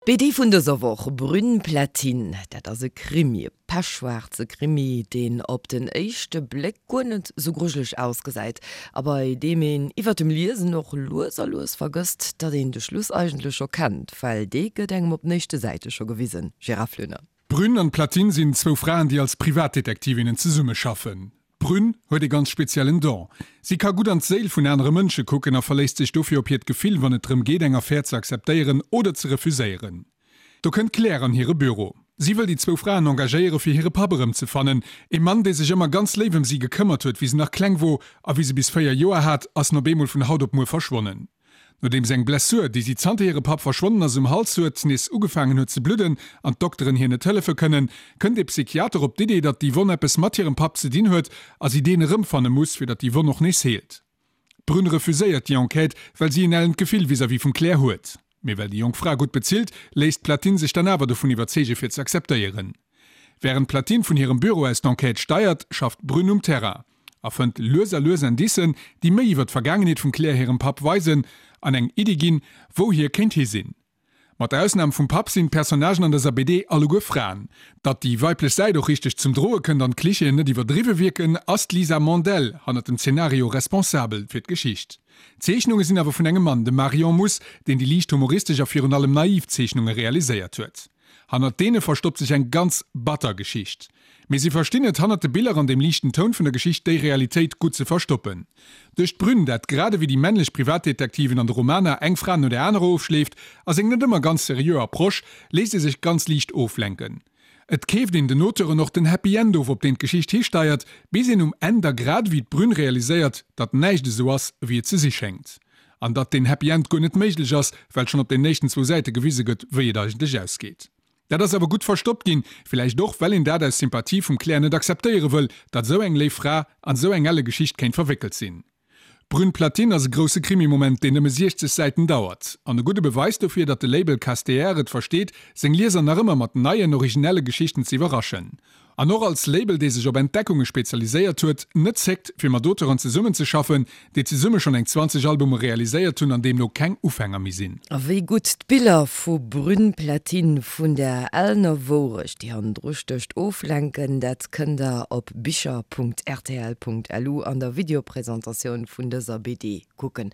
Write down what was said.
D'BD vun dëser Woch, Brune Platine, dat ass e Krimi, e pechschwaarze Krimi, deen op den éischte Bléck guer net sou grujeleg ausgesäit a bei deem een iwwer dem Liesen och lues a lues vergësst, datt een de Schluss eigentlech scho kennt, well dee gëtt engem op den éischte Säite scho gewisen. Gérard Flöner. D'Brune an d'Platine sinn zwou Fraen, déi als Privatdetektivinnen zesummeschaffen. D'Brune huet ee ganz speziellen Don. Si ka gutt an d'Séil vun anere Mënsche kucken a verléisst sech dofir op hiert Gefill, wann et drëm geet, eng Affär ze akzeptéieren oder ze refuséieren. Do kënnt d'Claire an hire Büro. Si wëll déi zwou Fraen engagéiere fir hire Papp erëmzefannen, ee Mann, dee sech ëmmer ganz léif ëm si gekëmmert huet, wéi se nach kleng wor a wéi se bis 4 Joer hat, ass en op eemol vun haut op muer verschwonnen. Nodeems eng Blessur, déi si zanter hire Papp verschwonnen ass um Hals huet, nees ugefaangen huet ze bludden an d'Dokteren hir net hëllefe kënnen, kënnt ee Psychiater op d'Idee, datt déi Wonn eppes mat hirem Papp ze dinn huet a si deen erëmfanne muss, fir datt déi Wonn och nees heelt. D'Brune refuséiert déi Enquête, well si en ellent Gefill vis-à-vis vum Claire huet. Mee well déi jonk Fra gutt bezilt, léisst d'Platine sech dann awer dovun iwwerzeege fir ze akzeptéieren. Wärend d'Platine vun hirem Büro aus d'Enquête steiert, schafft d'Brune um Terrain. A fënnt lues a lues Indicen, déi méi iwwer d'Vergaangenheet vum Claire hirem Papp weisen an eng Iddi ginn, wou hie kéint hi sinn. Mat der Ausnam vum Papp sinn d'Personnagen an dëser BD alleguer Fraen. Datt déi weiblech Säit och richteg zum Droe kënnt an d'Klichéen net iwwerdriwwe wierken, ass d'Lisa Mandel hannert dem Zenario responsabel fir d'Geschicht. D'Zeechnunge sinn awer vun engem Mann, dem Marion Muss, deen déi liicht humoristesch a virun allem naiv Zeechnunge realiséiert huet. Hannert deene verstoppt sech eng ganz batter Geschicht. Mee si verstinn et, hannert de Biller an dem liichten Toun vun der Geschicht déi Realitéit gutt ze verstoppen. Duerch d'Brünn, dat grad ewéi déi männlech Privatdetektiven an de Romaner eng Fra no der anerer ofschleeft, a seng net ëmmer ganz seriö Approche, léisst ee sech ganz liicht oflenken. Et keeft een den Auteuren och den Happy End of, op deen d'Geschicht histeiert, bis een um Enn da grad ewéi d'Brünn realiséiert, datt näischt esou ass, ewéi et ze si schéngt. An datt deen Happy End guer net méiglech ass, well schonn op den éischten zwou Säite gewise gëtt, wéi et eigentlech ausgeet. Dat ass awer gutt verstoppt ginn, villäicht och, well een dat aus Sympathie vum Claire net akzeptéiere wëll, datt esou eng léif Fra an esou eng elle Geschicht kéint verwéckelt sinn. Brune Platine ass e grousse Krimi-Moment, deen nëmme 60 Säiten dauert. An e gudde Beweis dofir, datt de Label Casteer et versteet, seng Lieser nach ëmmer mat neien, originelle Geschichten ze iwwerraschen. An och als Label, dee sech op Entdeckunge spezialiséiert huet, net zéckt, fir mat Auteuren zesummenzeschaffen, déi zesumme schonn eng 20 Albume realiséiert hunn an deemno keng Ufänger méi sinn. A wéi gutt d'Biller vu Brune Platine vun der ellener Wourecht, déi hannendru stécht, oflenken, dat kënnt der op bicher.rtl.lu an der Videopresentatioun vun dëser BD kucken.